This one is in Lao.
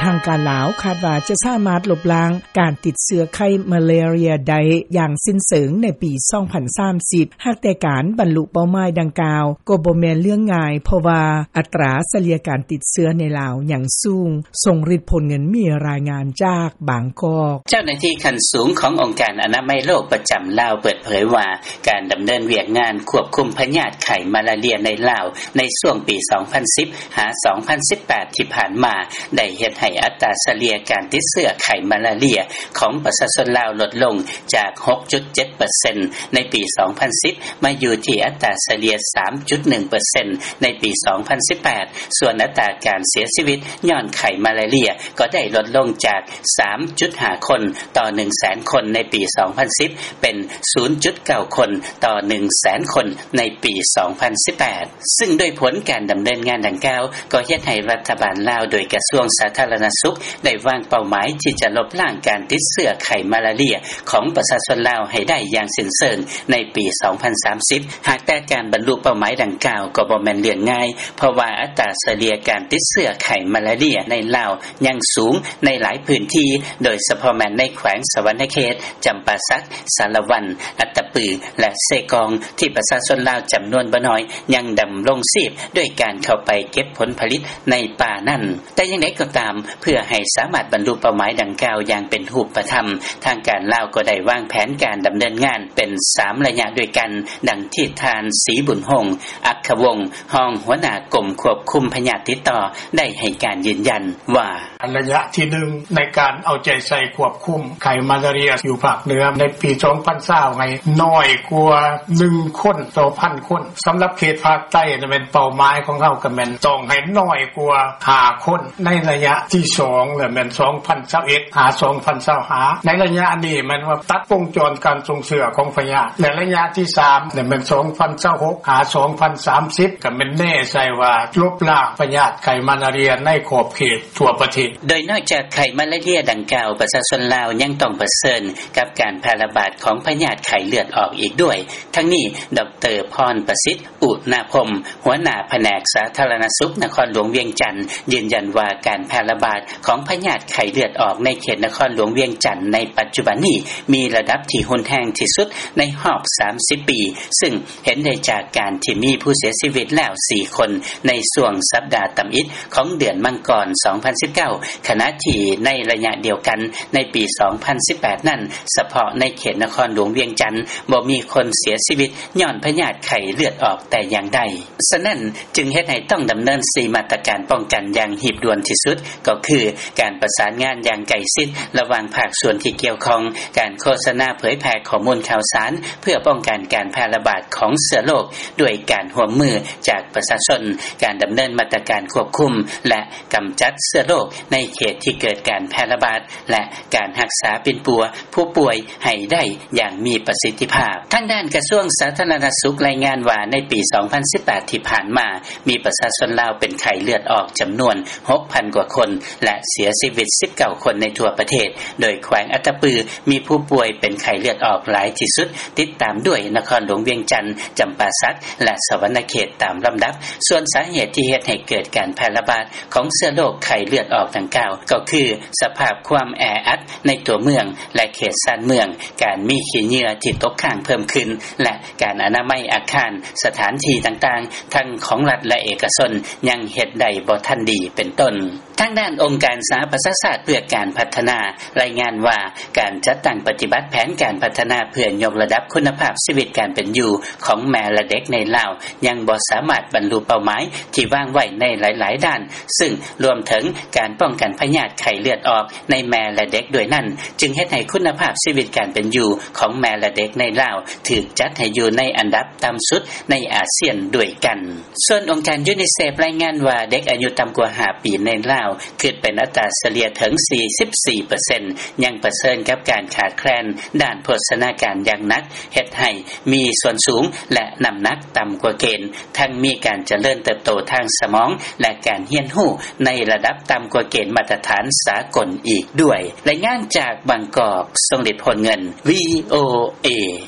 ທາງການລາວຄາດວ່າຈະສາມາດລົບລ້າງການຕິດເຊື້ອໄຂ້ມາລາເຣັຽໄດ້ຢ່າງສິ້ນເຊີງໃນປີ ສອງພັນສາມສິບ ຫາກແຕ່ການບັນລຸເປົ້າໝາຍດັ່ງກ່າວກໍບໍ່ແມ່ນເລື່ອງງ່າຍ ເພາະວ່າອັດຕາສະເລ່ຍການຕິດເຊື້ອໃນລາວຍັງສູງ. ຊົງລິດ ໂພນເງິນ ມີລາຍງານຈາກບາງກອກ. ເຈົ້າໜ້າທີ່ຂັ້ນສູງຂອງອົງການອະນາໄມໂລກປະຈຳລາວເປີດເຜີຍວ່າ ການດຳເນີນວຽກງານຄວບຄຸມພະຍາດໄຂ້ມາລາເຣັຽໃນລາວ ໃນຊ່ວງປີ ສອງພັນສິບ ຫາ ສອງພັນສິບແປດ ທີ່ຜ່ານມາ ໄດ້ເຮັດໃຫ້ອັດຕາສະເລ່ຍການຕິດເຊື້ອໄຂ້ມາລາເຣັຽຂອງປະຊາຊົນລາວລົດລົງຈາກ ຫົກຈຸດເຈັດເປີເຊັນ ໃນປີ ສອງພັນສິບ ມາຢູ່ທີ່ອັດຕາສະເລ່ຍ ສາມຈຸດໜຶ່ງເປີເຊັນ ໃນປີ ສອງພັນສິບແປດ ສ່ວນອັດຕາການເສຍຊີວິດຍ້ອນໄຂ້ມາລາເຣັຽກໍໄດ້ລົດລົງຈາກ ສາມຈຸດຫ້າຄົນຕໍ່ໜຶ່ງແສນຄົນໃນປີ ສອງພັນສິບ ເປັນ ສູນຈຸດເກົ້າຄົນຕໍ່ໜຶ່ງແສນຄົນໃນປີ ສອງພັນສິບແປດ ຊຶ່ງດ້ວຍຜົນການດຳເນີນງານດັ່ງກ່າວ ກໍເຮັດໃຫ້ລັດຖະບານລາວ ໂດຍກະຊວງສາທາລະນະສຸກ ໄດ້ວາງເປົ້າໝາຍທີ່ຈະລົບລ້າງການຕິດເຊື້ອໄຂ້ມາລາເຣັຽຂອງປະຊາຊົນລາວໃຫ້ໄດ້ຢ່າງສິ້ນເຊີງໃນປີ ສອງພັນສາມສິບ ຫາກແຕ່ການບັນລຸເປົ້າໝາຍດັ່ງກ່າວກໍບໍ່ແມ່ນເລື່ອງງ່າຍ ເພາະວ່າອັດຕາສະເລ່ຍການຕິດເຊື້ອໄຂ້ມາລາເຣັຽໃນລາວຍັງສູງໃນຫຼາຍພື້ນທີ່ ໂດຍສະເພາະແມ່ນໃນແຂວງສະຫວັນນະເຂດ, ຈຳປາສັກ, ສາລະວັນ, ອັດຕະປື ແລະ ເຊກອງ ທີ່ປະຊາຊົນລາວຈຳນວນບໍ່ໜ້ອຍຍັງດຳລົງຊີບດ້ວຍການເຂົ້າໄປເກັບຜົນຜະລິດໃນປ່ານັ້ນ. ແຕ່ຢ່າງໃດກໍຕາມ, ເພື່ອໃຫ້ສາມາດບັນລຸເປົ້າໝາຍດັ່ງກ່າວຢ່າງເປັນຮູບປະທຳ, ທາງການລາວກໍໄດ້ວາງແຜນການດຳເນີນງານເປັນສາມໄລຍະດ້ວຍກັນ, ດັ່ງທີ່ທ່ານ ສີບຸນຮົງ ອັກຂະວົງ ຮອງຫົວໜ້າກົມຄວບຄຸມພະຍາດຕິດຕໍ່ ໄດ້ໃຫ້ການຢືນຢັນວ່າ ໄລຍະທີໜຶ່ງ ໃນການເອົາໃຈໃສ່ຄວບຄຸມໄຂ້ມາລາເຣັຽຢູ່ພາກເໜືອ ໃນປີ ສອງພັນຊາວ ໃຫ້ນ້ອຍກວ່າໜຶ່ງຄົນຕໍ່ພັນຄົນ. ສຳລັບເຂດພາກໃຕ້ນັ້ນແມ່ນເປົ້າໝາຍຂອງເຮົາກໍແມ່ນຕ້ອງໃຫ້ນ້ອຍກວ່າຫ້າຄົນ. ໃນໄລຍະທີສອງແລ້ວແມ່ນ ສອງພັນຊາວເອັດ ຫາ ສອງພັນຊາວຫ້າ ໃນໄລຍະນີ້ແມ່ນວ່າຕັດວົງຈອນການສົ່ງເຊື້ອຂອງພະຍາດ ແລະ ໄລຍະທີສາມແລ້ວແມ່ນ ສອງພັນຊາວຫົກ ຫາ ສອງພັນສາມສິບ ກໍແມ່ນແນໃສ່ວ່າລົບລ້າງພະຍາດໄຂ້ມາລາເຣັຽໃນຂອບເຂດ ທົ່ວປະເທດ. ໂດຍນອກຈາກໄຂ້ມາລາເຣັຽດັ່ງກ່າວ, ປະຊາຊົນລາວຍັງຕ້ອງປະເຊີນກັບການແຜ່ລະບາດຂອງພະຍາດໄຂ້ເລືອດອອກອີກດ້ວຍ. ທັງນີ້, ດອກເຕີ ພອນປະສິດ ອຸນາພົມ ຫົວໜ້າພະແນກສາທາລະນະສຸກນະຄອນຫຼວງວຽງຈັນ ຢືນຢັນວ່າການແຜ່ລະບາດຂອງພະຍາດໄຂ້ເລືອດອອກໃນເຂດນະຄອນຫຼວງວຽງຈັນໃນປັດຈຸບັນນີ້ ມີລະດັບທີ່ຮຸນແຮງທີ່ສຸດໃນຮອບສາມສິບປີ, ຊຶ່ງ ເຫັນໄດ້ຈາກການທີ່ມີຜູ້ເສຍຊີວິດແລ້ວສີ່ຄົນໃນຊ່ວງສັບດາຕຳອິດຂອງເດືອນມັງກອນ ສອງພັນສິບເກົ້າ ຂະນະທີ່ໃນໄລຍະດຽວກັນໃນປີ ສອງພັນສິບແປດ ນັ້ນ, ສະເພາະໃນເຂດນະຄອນຫຼວງວຽງຈັນ ບໍ່ມີຄົນເສຍຊີວິດຍ້ອນພະຍາດໄຂ້ເລືອດອອກແຕ່ຢ່າງໃດ. ສະນັ້ນ, ຈຶ່ງເຮັດໃຫ້ຕ້ອງດຳເນີນສີ່ມາດຕະການປ້ອງກັນຢ່າງຮີບດ່ວນທີ່ສຸດ, ກໍຄື ການປະສານງານຢ່າງໃກ້ຊິດລະຫວ່າງພາກສ່ວນທີ່ກ່ຽວຂ້ອງ, ການໂຄສະນາເຜີຍແຜ່ຂໍ້ມູນຂ່າວສານ ເພື່ອປ້ອງກັນການແຜ່ລະບາດຂອງເຊື້ອໂລກ ດ້ວຍການຮ່ວມມືຈາກປະຊາຊົນ, ການດຳເນີນມາດຕະການຄວບຄຸມ ແລະ ກຳຈັດເຊື້ອໂລກໃນເຂດທີ່ເກີດການແຜ່ລະບາດ ແລະ ການຮັກສາປິ່ນປົວຜູ້ປ່ວຍໃຫ້ໄດ້ຢ່າງມີປະສິດທິພາບ. ທາງດ້ານກະຊວງສາທາລະນະສຸກລາຍງານວ່າ ໃນປີ ສອງພັນສິບແປດ ທີ່ຜ່ານມາ, ມີປະຊາຊົນລາວເປັນໄຂ້ເລືອດອອກຈຳນວນ ຫົກພັນກວ່າຄົນ ແລະ ເສຍຊີວິດ ສິບເກົ້າຄົນໃນທົ່ວປະເທດ, ໂດຍແຂວງອັດຕະປືມີຜູ້ປ່ວຍເປັນໄຂ້ເລືອດອອກຫຼາຍທີ່ສຸດ, ຕິດຕາມດ້ວຍນະຄອນຫຼວງວຽງຈັນ, ຈຳປາສັກ ແລະ ສະຫວັນນະເຂດຕາມລຳດັບ. ສ່ວນສາເຫດທີ່ເຮັດໃຫ້ເກີດການແຜ່ລະບາດຂອງເຊື້ອໂລກໄຂ້ເລືອດອອກດັ່ງກ່າວ ກໍຄືສະພາບຄວາມແອອັດໃນຕົວເມືອງ ແລະ ເຂດຊານເມືອງ, ການມີຂີ້ເຫຍື້ອທີ່ຕົກຄ້າງເພີ່ມຂຶ້ນ ແລະ ການອະນາໄມອາຄານ, ສະຖານທີ່ຕ່າງໆ ທັງຂອງລັດ ແລະ ເອກະຊົນ ຍັງເຮັດໄດ້ບໍ່ທັນດີ ເປັນຕົ້ນ. ທາງດ້ານອົງການສະຫະປະຊາຊາດເພື່ອການພັດທະນາ ລາຍງານວ່າ ການຈັດຕັ້ງປະຕິບັດແຜນການພັດທະນາເພື່ອຍົກລະດັບຄຸນນະພາບຊີວິດການເປັນຢູ່ຂອງແມ່ ແລະ ເດັກໃນລາວ ຍັງບໍ່ສາມາດບັນລຸເປົ້າໝາຍທີ່ວາງໄວ້ໃນຫຼາຍໆດ້ານ, ຊຶ່ງລວມເຖິງການປ້ອງກັນພະຍາດໄຂ້ເລືອດອອກໃນແມ່ ແລະ ເດັກດ້ວຍນັ້ນ, ຈຶ່ງເຮັດໃຫ້ຄຸນນະພາບຊີວິດການເປັນຢູ່ຂອງແມ່ ແລະ ເດັກໃນລາວ ຖືກຈັດໃຫ້ຢູ່ໃນອັນດັບຕ່ຳສຸດໃນອາຊຽນດ້ວຍກັນ. ສ່ວນອົງການຢູນິເຊຟລາຍງານວ່າ ເດັກອາຍຸຕ່ຳກວ່າຫ້າປີໃນລາວ ຄິດເປັນອັດຕາສະເລ່ຍເຖິງ ສີ່ສິບສີ່ເປີເຊັນ ຍັງປະເຊີນກັບການຂາດແຄລນດ້ານໂພຊະນາການຢ່າງໜັກ, ເຮັດໃຫ້ມີສ່ວນສູງ ແລະ ນ້ຳໜັກຕ່ຳກວ່າເກນ, ທັງມີການຈະເລີນເຕີບໂຕທາງສະໝອງ ແລະ ການຮຽນຮູ້ໃນລະດັບຕ່ຳກວ່າເກນມາດຕະຖານສາກົນອີກດ້ວຍ. ລາຍງານຈາກບາງກອກ, ຊົງລິດ ໂພນເງິນ, ວີໂອເອ.